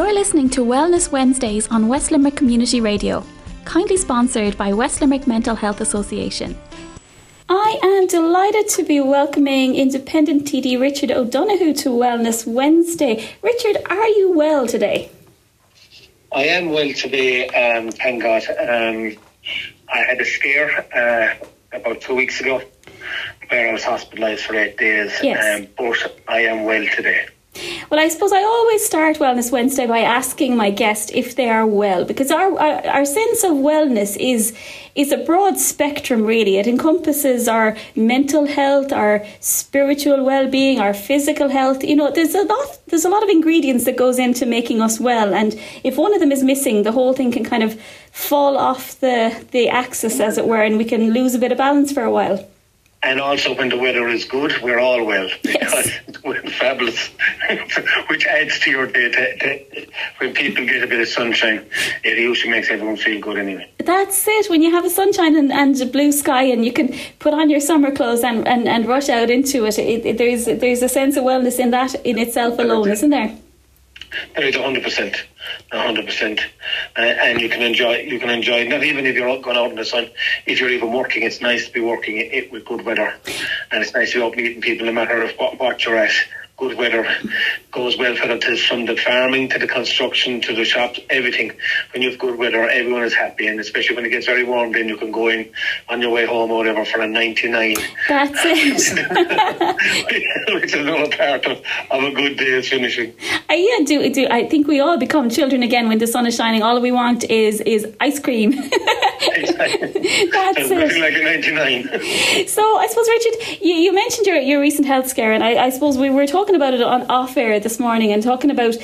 You're listening to Wellness Wednesdays on West Limerick Community Radio, kindly sponsored by West Limerick Mental Health Association. I am delighted to be welcoming independent TD Richard O'Donoghue to Wellness Wednesday. Richard, are you well today? I am well today, thank God. I had a scare about 2 weeks ago where I was hospitalised for 8 days, yes. But I am well today. Well, I suppose I always start Wellness Wednesday by asking my guest if they are well, because our sense of wellness is a broad spectrum, really. It encompasses our mental health, our spiritual well-being, our physical health. You know, there's a lot of ingredients that goes into making us well, and if one of them is missing, the whole thing can kind of fall off the axis, as it were, and we can lose a bit of balance for a while. And also when the weather is good, we're all well, because yes. we're fabulous, which adds to your day. When people get a bit of sunshine, it usually makes everyone feel good anyway. That's it. When you have a sunshine and a blue sky and you can put on your summer clothes and rush out into it, there's a sense of wellness in that in itself alone, isn't there? There is 100%. And you can enjoy, not even if you're going out in the sun, if you're even working, it's nice to be working it with good weather. And it's nice to be out meeting people no matter what you're at. Good weather goes well for it, from the farming to the construction to the shops, everything. When you have good weather, everyone is happy, and especially when it gets very warm, then you can go in on your way home or whatever for a 99. That's it. Which is another part of a good day is finishing. I think we all become children again when the sun is shining. All we want is ice cream. Exactly. That's nothing like a 99. So I suppose, Richard, you mentioned your recent health scare, and I suppose we were talking about it on off air this morning, and talking about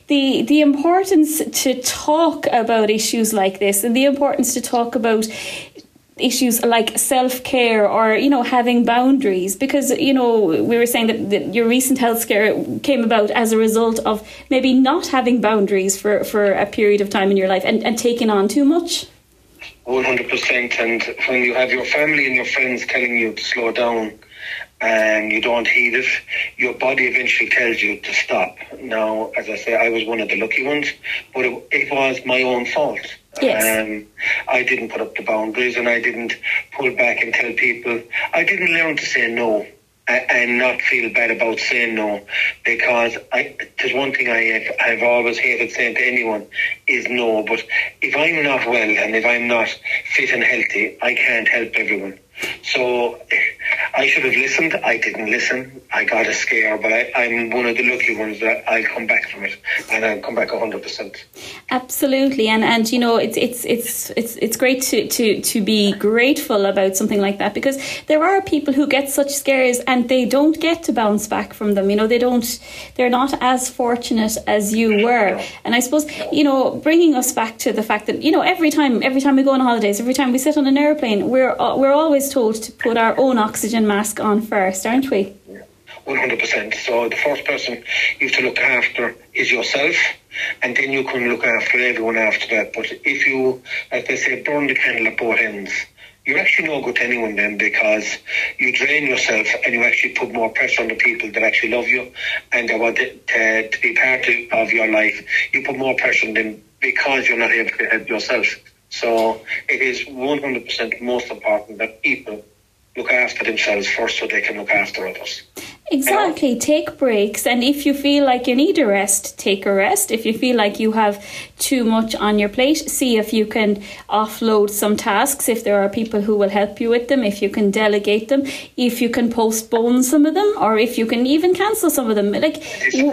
the importance to talk about issues like this, and the importance to talk about issues like self-care, or, you know, having boundaries, because, you know, we were saying that your recent health scare came about as a result of maybe not having boundaries for a period of time in your life, and taking on too much. 100%. And when you have your family and your friends telling you to slow down and you don't heed it, your body eventually tells you to stop. Now, as I say, I was one of the lucky ones, but it was my own fault. Yes. I didn't put up the boundaries, and I didn't pull back and tell people. I didn't learn to say no and not feel bad about saying no, because there's one thing I've always hated saying to anyone is no. But if I'm not well and if I'm not fit and healthy, I can't help everyone. So I should have listened. I didn't listen. I got a scare, but I'm one of the lucky ones that I'll come back from it, and I'll come back 100%. Absolutely, and you know, it's great to be grateful about something like that, because there are people who get such scares and they don't get to bounce back from them. You know, they're not as fortunate as you were. And I suppose, you know, bringing us back to the fact that, you know, every time we go on holidays, every time we sit on an airplane, we're always told to put our own oxygen mask on first, aren't we? 100%. So the first person you have to look after is yourself, and then you can look after everyone after that. But if you, as they say, burn the candle at both ends, you're actually no good to anyone then, because you drain yourself and you actually put more pressure on the people that actually love you and they want to be part of your life. You put more pressure on them because you're not able to help yourself. So it is 100% most important that people look after themselves first so they can look after others. Exactly. You know? Take breaks, and if you feel like you need a rest, take a rest. If you feel like you have too much on your plate, see if you can offload some tasks, if there are people who will help you with them, if you can delegate them, if you can postpone some of them, or if you can even cancel some of them. Like,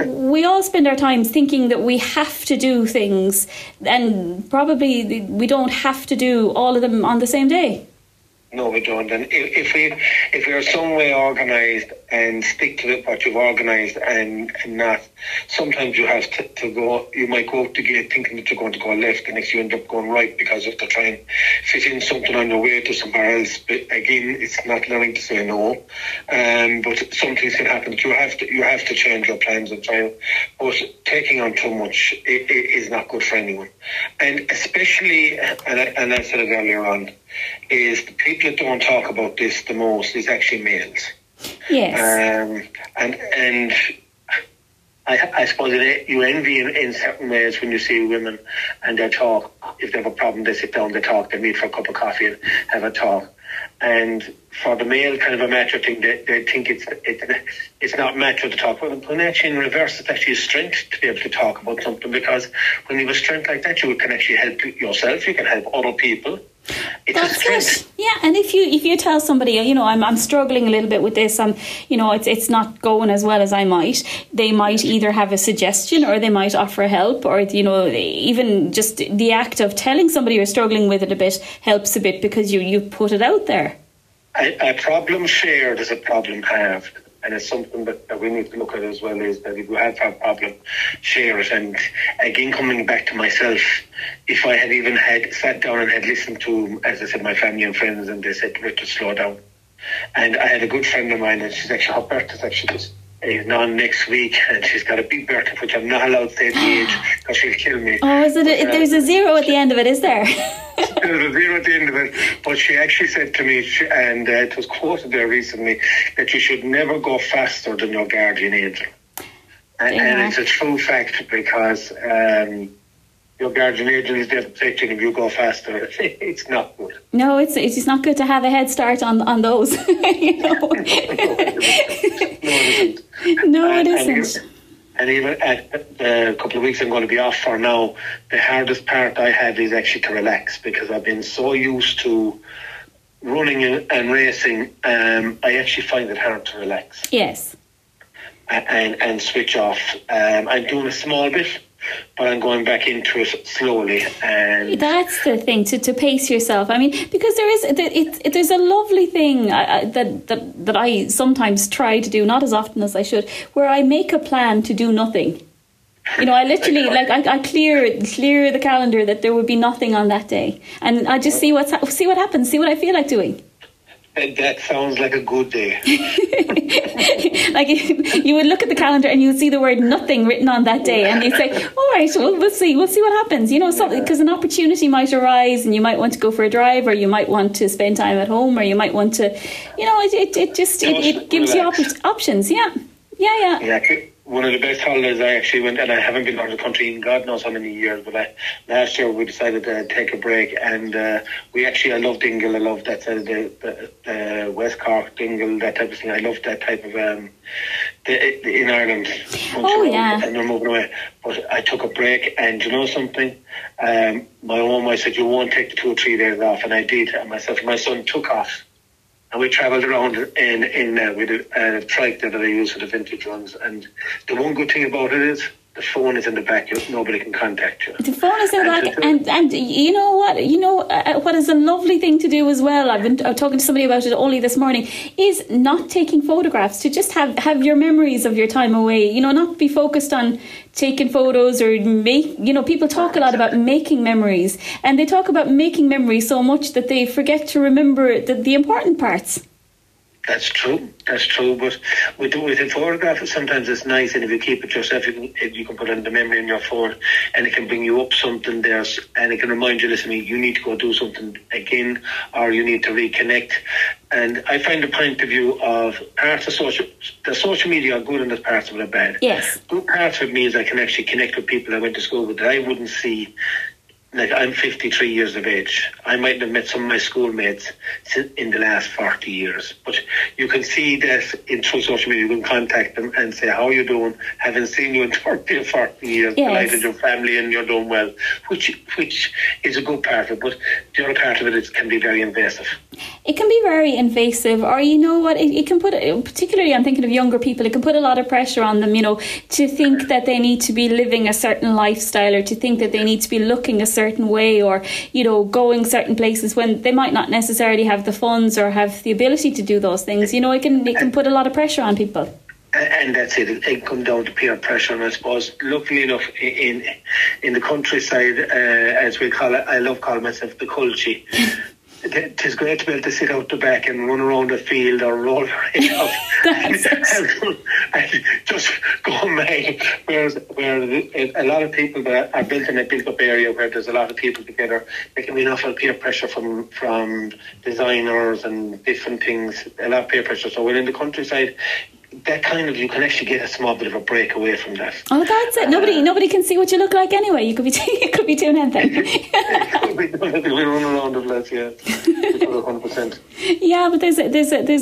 we all spend our time thinking that we have to do things, and probably we don't have to do all of them on the same day. No, we don't. And if we're some way organised and stick to what you've organised and not, sometimes you have to go, you might go out the gate thinking that you're going to go left, and next you end up going right because of the try and fit in something on your way to somewhere else. But again, it's not learning to say no. But some things can happen. You have to change your plans and try. But taking on too much is not good for anyone. And especially, and I said it earlier on, is the people that don't talk about this the most is actually males. Yes. And I suppose you envy in certain ways when you see women and they talk. If they have a problem, they sit down, they talk, they meet for a cup of coffee and have a talk. And for the male kind of a macho thing, they think it's not macho to talk about it. When actually in reverse, it's actually a strength to be able to talk about something, because when you have a strength like that, you can actually help yourself, you can help other people. That's it. Yeah, and if you tell somebody, I'm struggling a little bit with this, it's not going as well as I might, they might either have a suggestion or they might offer help, or even just the act of telling somebody you're struggling with it a bit helps a bit, because you put it out there. A problem shared is a problem halved. And it's something that we need to look at as well, is that if we have a problem, share it. And again, coming back to myself, if I had even sat down and had listened to, as I said, my family and friends, and they said, Richard, slow down. And I had a good friend of mine, and she's actually, her birthday's actually on next week, and she's got a big birthday, which I'm not allowed to say the age, because she'll kill me. Oh, is it? There's a zero at the end of it, is there? There's a zero at the end of it, but she actually said to me, and it was quoted there recently, that you should never go faster than your guardian angel. And it's a true fact, because your guardian angel is there to protect you, and if you go faster, it's not good. No, it's not good to have a head start on those. No, it isn't. No, it isn't. And even a couple of weeks I'm going to be off for now, the hardest part I have is actually to relax, because I've been so used to running and racing. I actually find it hard to relax. Yes. And switch off. I'm doing a small bit, but I'm going back into it slowly. And that's the thing, to pace yourself. I mean, because there's a lovely thing that I sometimes try to do, not as often as I should, where I make a plan to do nothing. I literally I clear the calendar that there would be nothing on that day, and I just see what happens, see what I feel like doing. That sounds like a good day. Like you would look at the calendar and you would see the word nothing written on that day, and you'd say, all right, well, we'll see what happens, because an opportunity might arise, and you might want to go for a drive, or you might want to spend time at home, or you might want to, it gives you options. Yeah. One of the best holidays I actually went, and I haven't been out of the country in God knows how many years, but last year we decided to take a break, and I love Dingle. I love that side of the West Cork, Dingle, that type of thing. I love that type of in Ireland. Oh yeah. And they're moving away. But I took a break, and you know something? My own wife said, you won't take the 2 or 3 days off, and I did. And myself and my son took off. And we travelled around with a trike that I use for the vintage ones. And the one good thing about it is the phone is in the back. Nobody can contact you. The phone is in the back. And you know what? What is a lovely thing to do as well, I've been talking to somebody about it only this morning, is not taking photographs, to just have your memories of your time away. Not be focused on taking photos, or people talk a lot about making memories, and they talk about making memories so much that they forget to remember the important parts. That's true. But with a photograph, sometimes it's nice, and if you keep it yourself, you can put it in the memory in your phone, and it can bring you up something there, and it can remind you, listen, you need to go do something again, or you need to reconnect. And I find the point of view of parts of social media are good, and there's parts of it are bad. Yes. Good parts of me is I can actually connect with people I went to school with that I wouldn't see. Like, I'm 53 years of age. I might have met some of my schoolmates in the last 40 years. But you can see that through social media. You can contact them and say, how are you doing? Haven't seen you in 30 or 40 years. Yes. Delighted your family and you're doing well. Which is a good part of it. But the other part of it can be very invasive. It can be very invasive, or it can put, particularly I'm thinking of younger people, it can put a lot of pressure on them, to think that they need to be living a certain lifestyle, or to think that they need to be looking a certain way, or going certain places, when they might not necessarily have the funds or have the ability to do those things. It can put a lot of pressure on people. And that's it. It comes down to peer pressure, and I suppose, luckily enough, in the countryside, as we call it, I love calling myself the culture. It's great to be able to sit out the back and run around the field, or roll your head up and just go mad. Where a lot of people that are built in a built-up area where there's a lot of people together, there can be enough peer pressure from designers and different things. A lot of peer pressure. So when in the countryside, that kind of, you can actually get a small bit of a break away from that. Oh, that's it. Nobody can see what you look like anyway. You could be doing anything. We run around the place, yeah. 100%. Yeah, but there's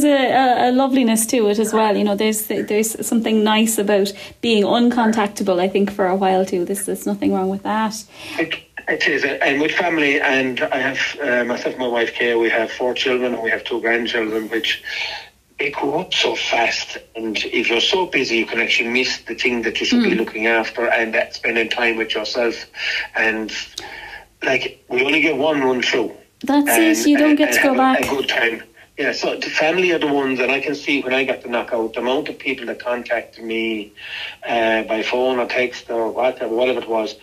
a loveliness to it as well. You know, there's something nice about being uncontactable, I think, for a while too. There's nothing wrong with that. It is, and with family, and I have myself and my wife Kay, we have 4 children and we have 2 grandchildren, which they grow up so fast, and if you're so busy you can actually miss the thing that you should be looking after, and that spending time with yourself. And like, we only get one run through. That's it, you don't get to go back. A good time. Yeah, so the family are the ones that I can see when I got the knockout, the amount of people that contacted me by phone or text or whatever it was.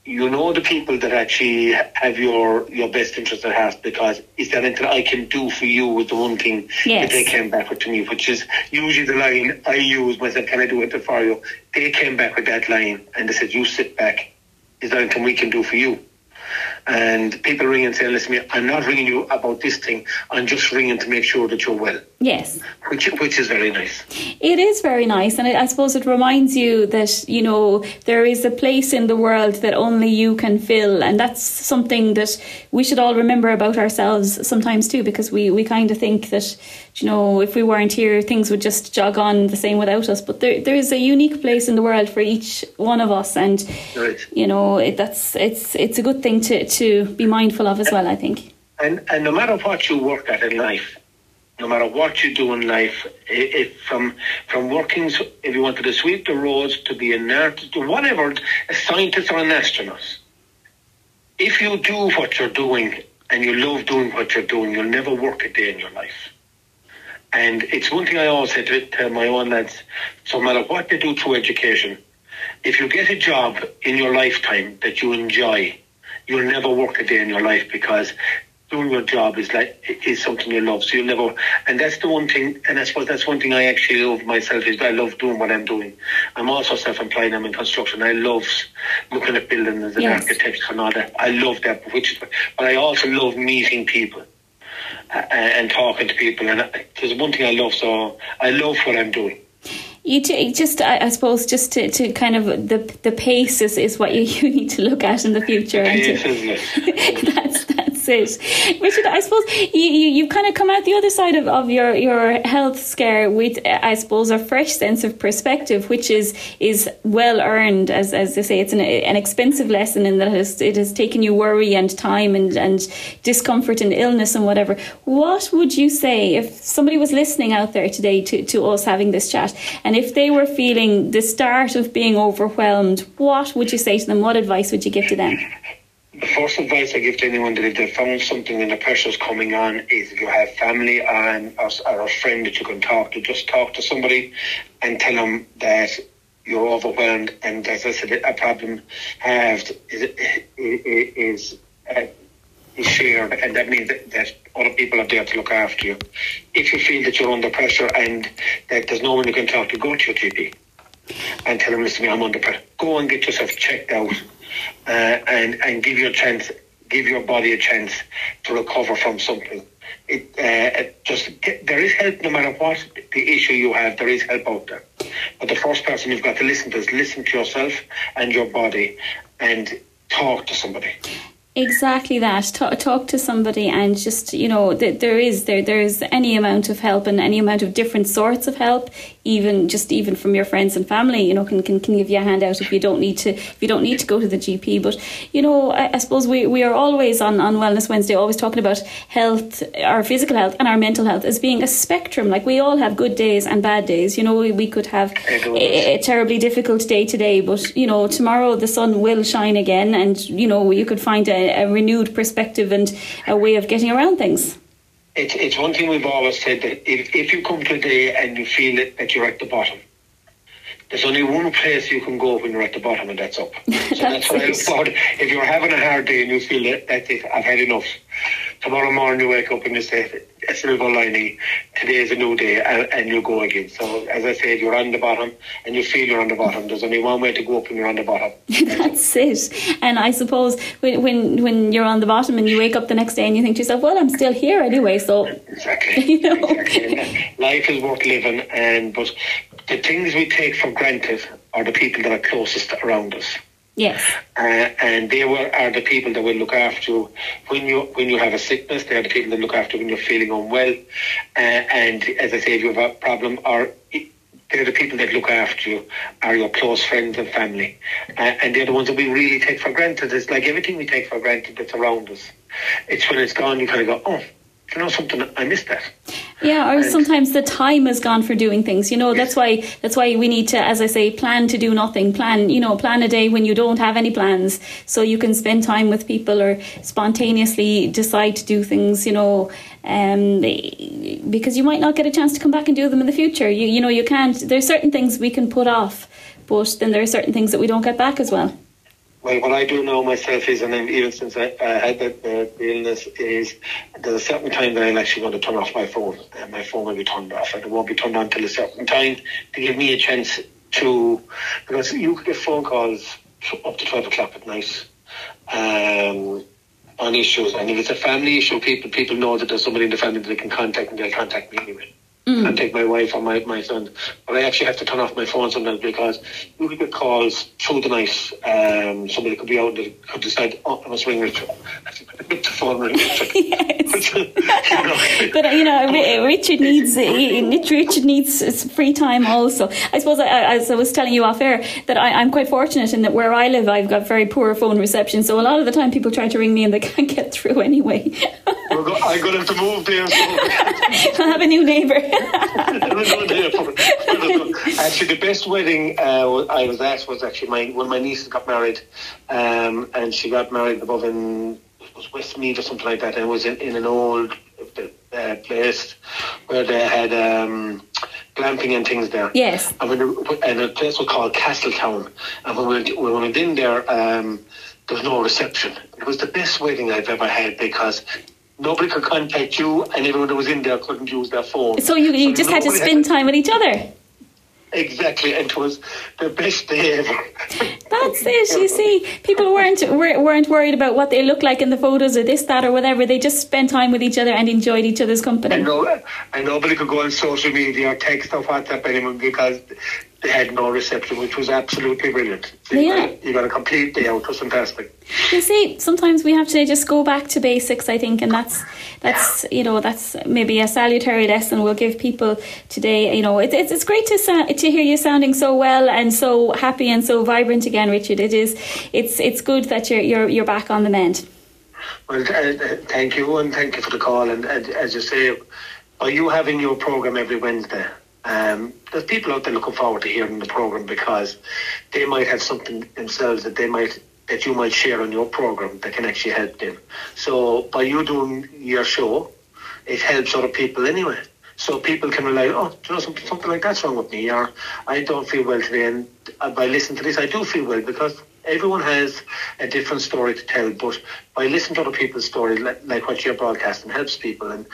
You know, the people that actually have your best interest at heart, because is there anything I can do for you with the one thing that they came back with to me, which is usually the line I use myself, can I do it for you? They came back with that line and they said, you sit back, is there anything we can do for you? And people ring and say, listen, I'm not ringing you about this thing, I'm just ringing to make sure that you're well. Yes. Which is very nice. It is very nice, and I suppose it reminds you that, you know, there is a place in the world that only you can fill, and that's something that we should all remember about ourselves sometimes too, because we kind of think that, you know, if we weren't here, things would just jog on the same without us. But there is a unique place in the world for each one of us, and you know, it's a good thing to be mindful of as well, I think. And no matter what you work at in life, no matter what you do in life, if from working, if you wanted to sweep the roads, to be an artist, or whatever, a scientist or an astronaut, if you do what you're doing and you love doing what you're doing, you'll never work a day in your life. And it's one thing I always say to my own lads, so no matter what they do through education, if you get a job in your lifetime that you enjoy, you'll never work a day in your life, because doing your job is something you love. So you'll never, and that's the one thing, and I suppose that's one thing I actually love myself, is I love doing what I'm doing. I'm also self-employed, I'm in construction. I love looking at buildings and architecture and all that. I love that, but I also love meeting people and talking to people. And there's one thing I love, so I love what I'm doing. I suppose, just to kind of the pace is what you need to look at in the future. Pace, isn't it? That's it. Richard, I suppose you've kind of come out the other side of your health scare with, I suppose, a fresh sense of perspective, which is well earned, as they say. It's an expensive lesson in that it has taken you worry and time and discomfort and illness and whatever. What would you say if somebody was listening out there today to us having this chat, and if they were feeling the start of being overwhelmed, what would you say to them? What advice would you give to them? The first advice I give to anyone that if they found something and the pressure's coming on is, if you have family or a friend that you can talk to, just talk to somebody and tell them that you're overwhelmed, and as I said, a problem is shared, and that means that other people are there to look after you. If you feel that you're under pressure and that there's no one you can talk to, go to your GP and tell them, listen, I'm under pressure. Go and get yourself checked out and give your body a chance to recover from something. There is help no matter what the issue you have. There is help out there. But the first person you've got to listen to is listen to yourself and your body, and talk to somebody. Exactly that. Talk to somebody, and just, you know, there is any amount of help and any amount of different sorts of help, even from your friends and family, you know, can give you a hand out if you don't need to go to the GP. But, you know, I suppose we are always on Wellness Wednesday always talking about health, our physical health and our mental health, as being a spectrum. Like, we all have good days and bad days. You know, we could have a terribly difficult day today, but, you know, tomorrow the sun will shine again, and, you know, you could find a renewed perspective and a way of getting around things. It's one thing we've always said, that if you come today and you feel that you're at the bottom, there's only one place you can go when you're at the bottom, and that's up. So that's what I look forward to. If you're having a hard day and you feel that's it, I've had enough, tomorrow morning you wake up and you say, a silver lining, today is a new day, and you go again. So as I said, you're on the bottom and you feel you're on the bottom. There's only one way to go up when you're on the bottom. That's it. And I suppose when you're on the bottom and you wake up the next day and you think to yourself, well, I'm still here anyway, so exactly. You know. Exactly. Life is worth living, but the things we take for granted are the people that are closest around us. Yes. And they are the people that will look after you when you have a sickness. They are the people that look after you when you're feeling unwell. And as I say, if you have a problem, they're the people that look after you, are your close friends and family. And they're the ones that we really take for granted. It's like everything we take for granted that's around us. It's when it's gone, you kind of go, oh, you know something, I missed that. Yeah, or sometimes the time has gone for doing things. That's why we need to, as I say, plan to do nothing. Plan a day when you don't have any plans, so you can spend time with people or spontaneously decide to do things. Because you might not get a chance to come back and do them in the future. You can't. There's certain things we can put off, but then there are certain things that we don't get back as well. Well, what I do now myself is, and even since I had the illness, is there's a certain time that I'm actually going to turn off my phone. And my phone will be turned off, and it won't be turned on till a certain time to give me a chance to, because you could get phone calls up to 12 o'clock at night on issues. And if it's a family issue, people know that there's somebody in the family that they can contact, and they'll contact me anyway. Contact my wife or my son. But I actually have to turn off my phone sometimes because you could get calls through the night. Somebody could be out and could decide, I must ring Richard. I have to put the phone ring Richard. Yes. But Richard needs free time also. I suppose, as I was telling you off air, that I'm quite fortunate in that where I live, I've got very poor phone reception. So a lot of the time people try to ring me and they can't get through anyway. I'm going to have to move there. So. I'll have a new neighbour. Actually, the best wedding I was at was actually when my niece got married, and she got married above in Westmeath or something like that, and it was in an old place where they had glamping and things there. Yes. And the place was called Castletown, and when we went in there, there was no reception. It was the best wedding I've ever had because nobody could contact you, and everyone that was in there couldn't use their phone. So you just had to spend time with each other. Exactly, and it was the best day ever. That's it. You see, people weren't worried about what they looked like in the photos or this, that, or whatever. They just spent time with each other and enjoyed each other's company. And nobody could go on social media or text or WhatsApp anyone because they had no reception, which was absolutely brilliant. So you got a complete day out. It was fantastic. You see, sometimes we have to just go back to basics, I think, and that's maybe a salutary lesson we'll give people today. It's great to hear you sounding so well and so happy and so vibrant again, Richard. It's good that you're back on the mend. Well, thank you, and thank you for the call. And as you say, by you having your program every Wednesday, there's people out there looking forward to hearing the program because they might have something themselves that you might share on your program that can actually help them. So by you doing your show, it helps other people anyway. So people can rely, something like that's wrong with me, or I don't feel well today, and by listening to this, I do feel well, because everyone has a different story to tell, but by listening to other people's stories, like what you're broadcasting, helps people, and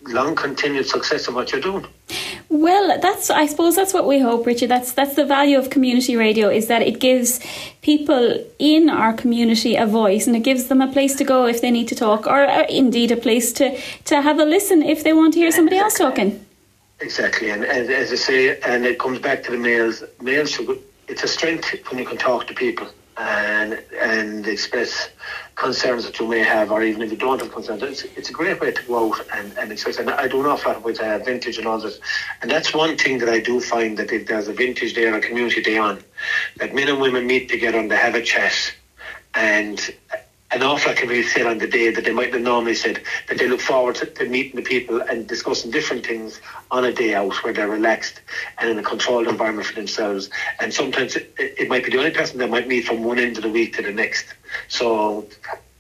long continued success in what you're doing. Well, I suppose that's what we hope, Richard. That's the value of community radio, is that it gives people in our community a voice, and it gives them a place to go if they need to talk, or indeed a place to have a listen if they want to hear somebody else talking. Exactly, and as I say, and it comes back to the males. It's a strength when you can talk to people and express concerns that you may have, or even if you don't have concerns. It's a great way to go out and express. And I do an awful lot with vintage and all this. And that's one thing that I do find, that if there's a vintage day or a community day on, that men and women meet together and they have a chat, and an awful lot can be said on the day that they might have normally said, that they look forward to meeting the people and discussing different things on a day out where they're relaxed and in a controlled environment for themselves. And sometimes it might be the only person that might meet from one end of the week to the next. So,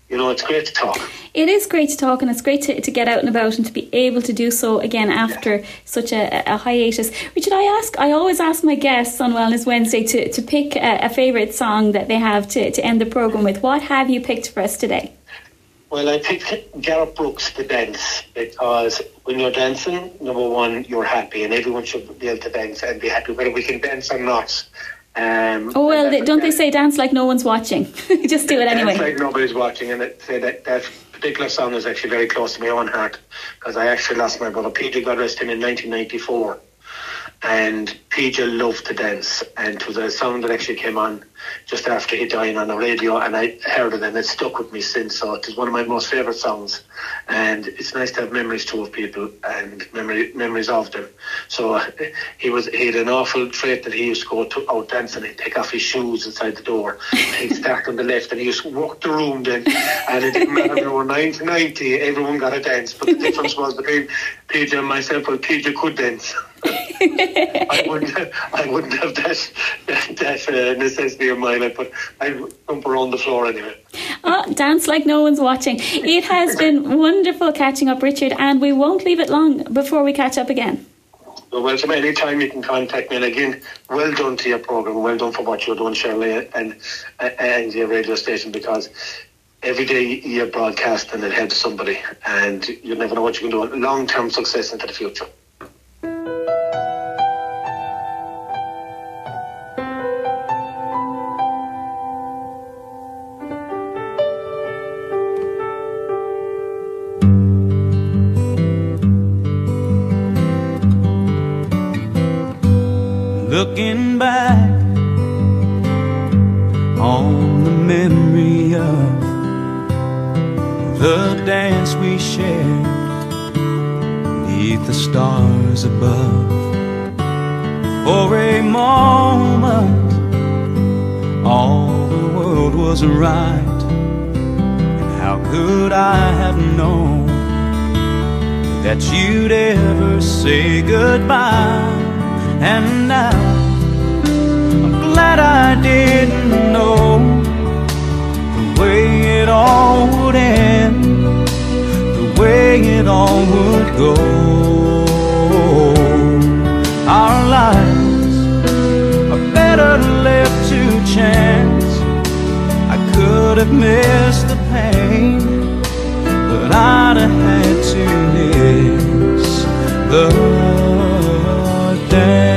it's great to talk. It is great to talk, and it's great to get out and about and to be able to do so again after such a hiatus. Richard, I always ask my guests on Wellness Wednesday to pick a favourite song that they have to end the programme with. What have you picked for us today? Well, I picked Gareth Brooks' The Dance, because when you're dancing, number one, you're happy, and everyone should be able to dance and be happy, whether we can dance or not. Don't they say dance like no one's watching? Just do it anyway. Dance like nobody's watching, and that particular song is actually very close to my own heart, because I actually lost my brother Peter, God rest him, in 1994. and PJ loved to dance, and it was a song that actually came on just after he died on the radio, and I heard it and it stuck with me since. So it is one of my most favourite songs, and it's nice to have memories too of people and memories of them. So he had an awful trait that he used to go to out dancing. He'd take off his shoes inside the door, and he'd start on the left, and he used to walk the room then, and it didn't matter if they were 90, everyone got a dance. But the difference was between PJ and myself, well, PJ could dance. I wouldn't have that necessity of mine. I'd jump around the floor anyway. Oh, dance like no one's watching. It has been wonderful catching up, Richard, and we won't leave it long before we catch up again. Well, welcome anytime you can contact me. And again, well done to your programme. Well done for what you're doing, Shirley, and your radio station, because every day you're broadcasting, it helps somebody, and you never know what you can do. Long-term success into the future. Looking back on the memory of the dance we shared beneath the stars above. For a moment all the world was right, and how could I have known that you'd ever say goodbye? And now I'm glad I didn't know the way it all would end, the way it all would go. Our lives are better left to chance. I could have missed the pain, but I'd have had to miss the dance.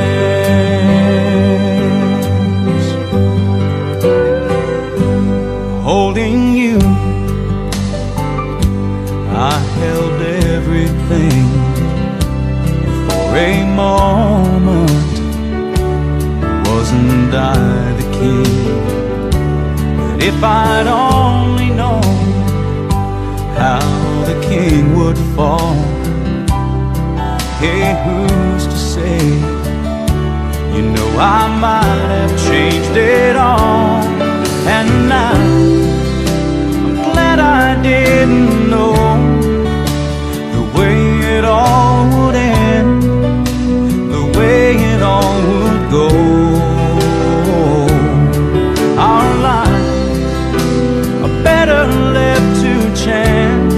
Holding you, I held everything. For a moment, wasn't I the king? But if I'd only known how the king would fall, hey, who's to say? You know, I might have changed it all. And now I'm glad I didn't know the way it all would end, the way it all would go. Our lives are better left to chance.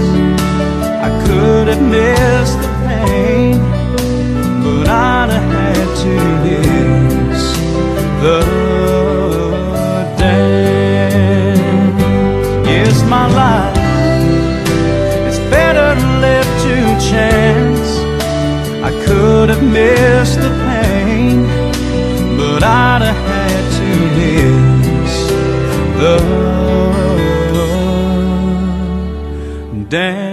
I could have missed the pain, but I'd have had to miss the my life is better left to chance. I could have missed the pain, but I'd have had to miss the dance.